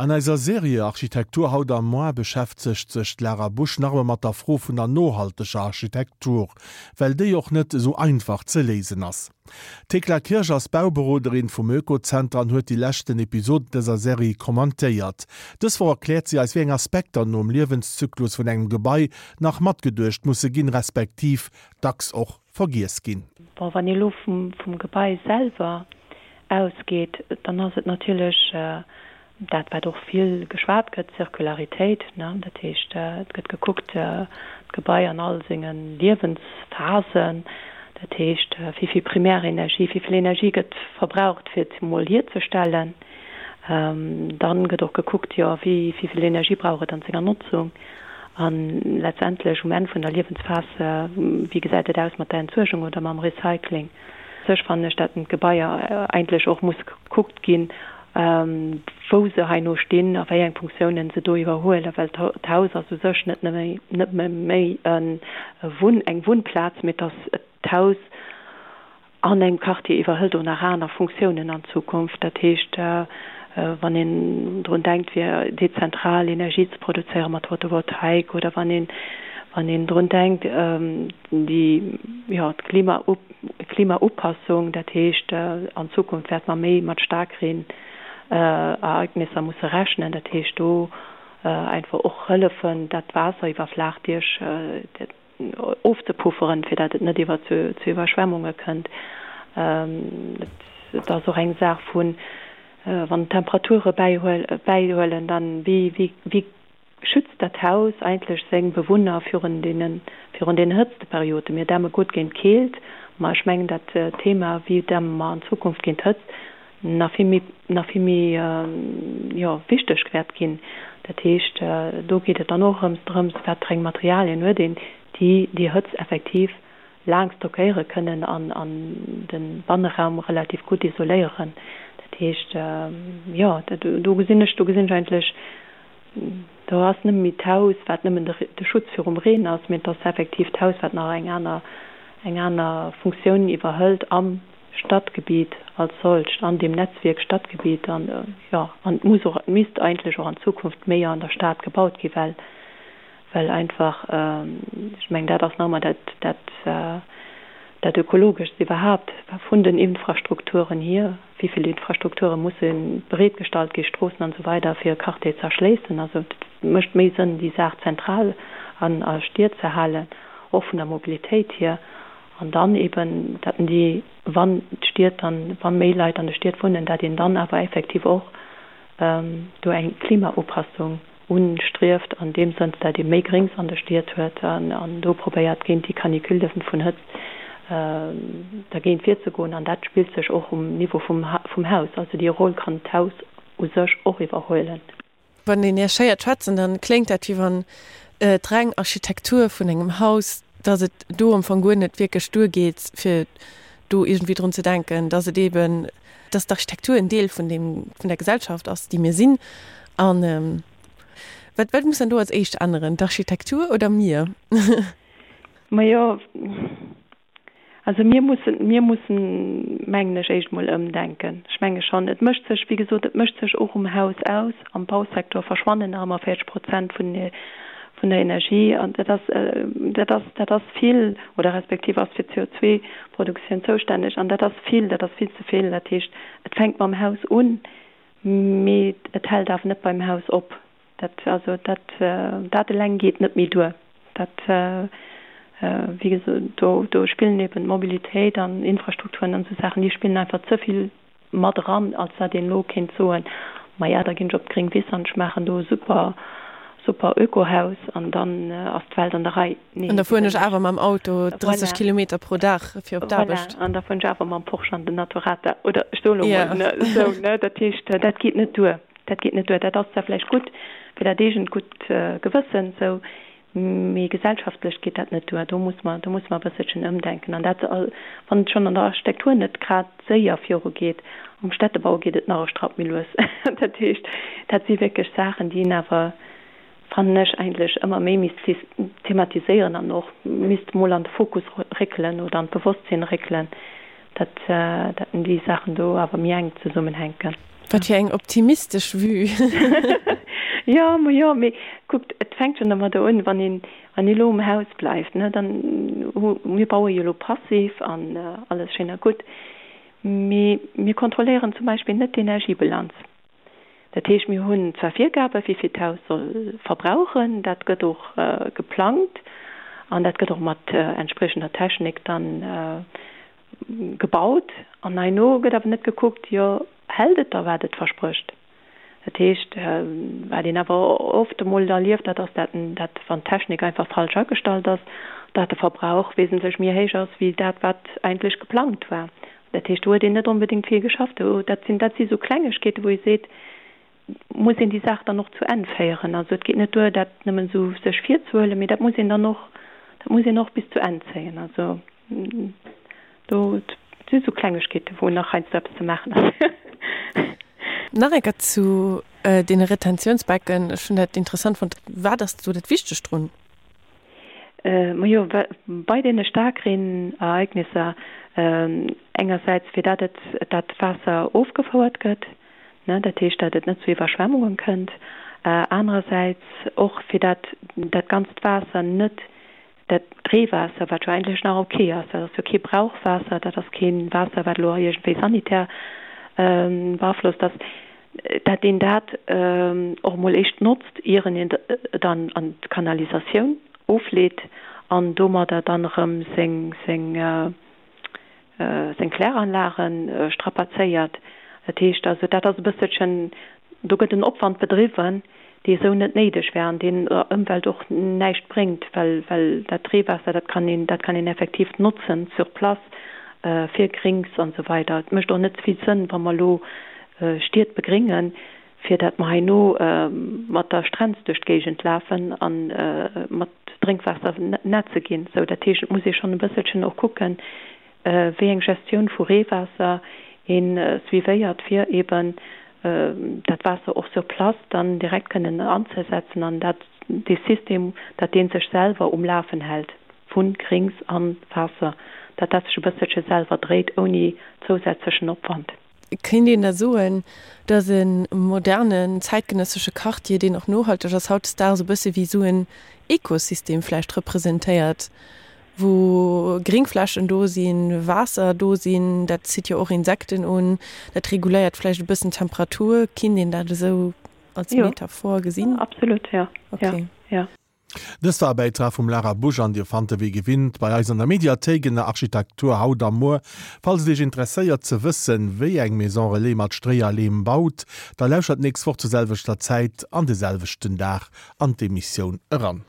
An eiser Serie Architektur haut a moar beschäftegt sech d'Lara Busch nach emol mat der Fro vun der nohalteger Architektur, well déi och net esou einfach ze léisen ass. D'Thekla Kirsch ass Bauberoderin vum Oekozenter an huet déi leschten Episoden dëser Serie kommentéiert. Dës Woch erkläert si eis wéi eng Aspekter nom Liewenszyklus vun engem Gebai nach matgeduecht musse ginn, respektiv dacks och vergiess ginn. Bon, wann ee elo vum Gebai selwer ausgeet, dann ass et natierlech dat, wat och vill geschwat gëtt, d'Zirkularitéit. Dat heescht, et gëtt gekuckt, d'Gebai an all senge Liewensphasen, dat heescht, wéi vill Primärenergie, wéi vill Energie gëtt verbraucht, fir et emol hierzestellen. Dann gëtt och gekuckt, jo, wéi vill Energie brauch et an senger Notzung. A letztendlech um Enn vun der Liewensphas, wéi gesäit et aus mat der Entsuergung oder mam Recycling? Sech fannen ech, dat d'Gebaier eigentlech och muss gekuckt ginn, wou se heino stinn a wéi eng Funktiounen se do iwwerhuelen, well d'Haus ass u sech net nëmme méi eng Wunnplaz, mee et ass d'Haus an engem Quartier iwwerhëlt och nach aner Funktiounen an Zukunft. Dat heescht, wann een drun denkt fir dezentral Energie ze produzéiere mat Photovoltaik oder wann een wann een drun denkt déi jo d'Klima Klimaupassung, dat heescht an Zukunft wäerte mer méi mat Staarkreen-Ereignisser musse rechnen, dat heescht do einfach och hëllefen dat Waasser iwwer Flaachdiech ofzepufferen, fir dat et net iwwer zu Iwwerschwemmunge kënnt. Et ass och eng Saach vun, wann d'Temperature bäihuelen, dann wéi wéi schützt dat Haus eigentlech seng Bewunner virun deene virun den Hëtztperioden. Mir dämme gutt géint d'Keelt, ma ech mengen dat Thema wéi dämme mer an Zukunft géint d'Hëtzt nach vill méi nach vill méi jo wichteg wäert ginn. Dat heescht, do geet et dann och erëms drëms, wat fir eng Materialien huet een, déi déi Hëtzt effektiv laang stockéiere kënnen an an de Banneraum relativ gutt isoléieren. Dat heescht, jo, do gesinn ech do gesinn ech eigentlech, do ass net méi d'Haus, wat nëmmen de Schutz virum Reen ass, mee et ass effektiv d'Haus, wat nach eng aner eng aner Funktioun iwwerhëlt am Stadgebiet als solcht, an deem Netzwierk Stadgebiet an, jo, an et muss och, et misst eigentlech och an Zukunft méi an der Stad gebaut gi well, well einfach, ech mengen, dat ass nach ëmmer dat, dat, dat Ökologeschst iwwerhaapt vun den Infrastrukturen hier, wéi vill Infrastrukture musse bereetgestallt gi, Stroossen an esou weider, fir e Quartier ze erschléissen. Also et mécht méi Sënn, déi Saach zentral an a Stied ze halen, och vun der Mobilitéit hier. An dann eben, dat déi, wann d'Stied dann, wa méi Leit an de Stied wunnen, dat een dann awer effektiv och do eng Klimaupassung unstrieft an deem Sënn, dat ee méi Gréngs an de Stied huet an do probéiert géint déi Canicule vun Hëtzt dergéint virzegoen. An dat spillt sech och um Niveau vum Haus. Also déi Roll kann d'Haus u sech och iwwerhuelen. Wann een Iech héiert schwätzen, dann kléngt dat wéi wann d'reng Architektur vun engem Haus, dass et do am Fong guer net wierklech duergeet, fir do iergendwéi drun ze denken, dass et eeben, dass d'Architektur en Deel vun deem, vun der Gesellschaft ass, déi mir sinn. An wat, wat muss dann do als éischt änneren, d'Architektur oder mir? Majo, Also mir mussen, mir mussen, mengen ech, éischt emol ëmdenken. Ech menge schonn, et mécht sech, wéi gesot, et mécht sech och um Haus aus. Am Bausektor verschwannen nach ëmmer 40 Prozent vun, vun der Energie. An dat ass, dat ass, dat ass vill, oder respektiv ass fir d'CO2-Produktioun zoustänneg. An dat ass vill, dat ass vill ze vill. Dat heescht, et fänkt mam Haus un, mee et hält awer net beim Haus op. Dat, also dat, dat eleng geet net méi duer. Dat, wéi gesot, do, do spillen eben d'Mobilitéit an Infrastrukturen an esou Saachen, déi spillen einfach ze vill mat eran, als dat een elo kéint soen, maja, da ginn ech op d'gréng Wiss an ech maachen do e super, super Ökohaus an dann ass d'Welt an der Rei. Nee, An da fueren ech awer mam Auto 30 Voilà. Kilometer pro Dag fir op d'Aarbecht. Voilà, an da fueren ech awer mam Porsche an den Naturata oder ech soe lo mol, ne, esou, ne. Dat heescht, dat geet net duer. Dat geet net duer. Dat ass zwar vläicht gutt fir dat eegent gutt Gewëssen, esou, mee gesellschaftlech geet dat net duer. Do muss mer, do musse mer e bësselchen ëmdenken. An dat, wann et schonn an der Architektur net grad séier virugeet, am Städtebau geet et nach e Strapp méi lues. Dat heescht, dat si wierklech Saachen, déi een awer, fannen ech, eigentlech ëmmer méi misst thematiséieren an och misst emol an de Fokus réckelen oder an d'Bewosstsinn réckelen. Dat, dat déi Saachen do awer méi enk zesummenhänken. Wat fir eng optimistesch Vue! Jo, ma jo, mee kuckt, et fänkt schonn domadder un, wann een, wann ee lo um Haus bleift, ne, dann hu, mir baue jo lo passiv an alles schéin a gutt, mee mir kontrolléieren zum Beispill net d'Energiebilanz. Dat heescht, mir hunn zwar Virgaben, wéi vill d'Haus soll verbrauchen, dat gëtt och geplangt an dat gëtt och mat entspriechender Technik dann gebaut. An herno gëtt awer net gekuckt, jo hält et da wat et versprécht? Dat heescht, wat een awer oft emol erlieft, dat ass, dat dat wann d'Technik einfach falsch agestallt ass, dat de Verbrauch wesentlech méi héich ass wéi dat wat eigentlech geplangt war. Dat heescht, do huet een net onbedéngt vill geschafft. Do, dat sinn, dat si sou Klengegkeeten, wou ee seet, muss een déi Saach dann och zu Enn féieren. Also et geet net duer, dat nëmmen esou sech virzehuelen, mee dat muss een dann och, dat muss een och bis zu Enn zéien. Also do si sou Klengegkeeten, wou nach heiansdo eppes ze maachen ass. Nach eng Kéier zu deene Retentiounsbecken. Ech hunn dat interessant fonnt. Wat ass do dat Wichtegt drun? Majo, bei deene Staarkreenereignisser engersäits fir dat et dat Waasser ofgefouert gëtt, ne, dat heescht dat et net zu Iwwerschwemmungen kënnt, anerersäits och fir dat dat ganzt Waasser net, dat Reewaasser, wat jo eigentlech nach ok ass, dat ass jo kee Brauchwaasser, dat ass kee Waasser wat elo iergendwéi sanitär beaflosst ass, dat een dat och emol éischt notzt, ieren een et an an d'Kanalisatioun ofleet an domadder dann erëm seng seng seng Kläranlage strapazéiert. Dat heescht also, dat ass e bësselchen, do gëtt en Opwand bedriwwen, dee esou net néideg wär an deen der Ëmwelt och näischt bréngt, well well dat Reewaasser, dat kann een dat kann een effektiv notzen sur place fir Grings an esou weider. Et mécht och net vill Sënn, wa mer elo Stied begréngen, fir dat mer heino mat der Strenz duerch d'Géigend lafen a mat Drénkwaasser netze ginn. Sou, dat heescht, et muss ee schonn e bësselchen och kucken, wéi eng Gestioun vu Reewaasser ee suivéiert, fir eeben dat Waasser och sur place dann direkt kënnen anzesetzen an dat dee System, dat dee sech selwer um Lafen hält vu Grings a Waasser, dat dat sech e bësselche selwer dréit ouni zousätzlechen Opwand. Kéint een da soen, datt e modernen, zäitgenëssesche Quartier, deen och nohalteg ass, hautdesdaags e bësse wéi esou en Ekosystem vläicht representéiert, wou Gringflächen do sinn, Waasser do sinn, dat zitt jo och Insekten un, dat reguléiert vläicht e bëssen d'Temperatur. Kinnt een dat esou als Metaphor gesinn? Jo, absolut, jo. Okay. Jo. Dëst war e Bäitrag vum Lara Busch an Dir fannt e wéi gewinnt bei eis an der Mediathéik ënner Architektur haut a muer. Falls et Iech interesséiert ze wëssen, wéi eng Maison Relais mat Stréi a Leem baut, da lauschtert d'nächst Woch zur selwechter Zäit an de selwechten Dag an d'Emissioun eran.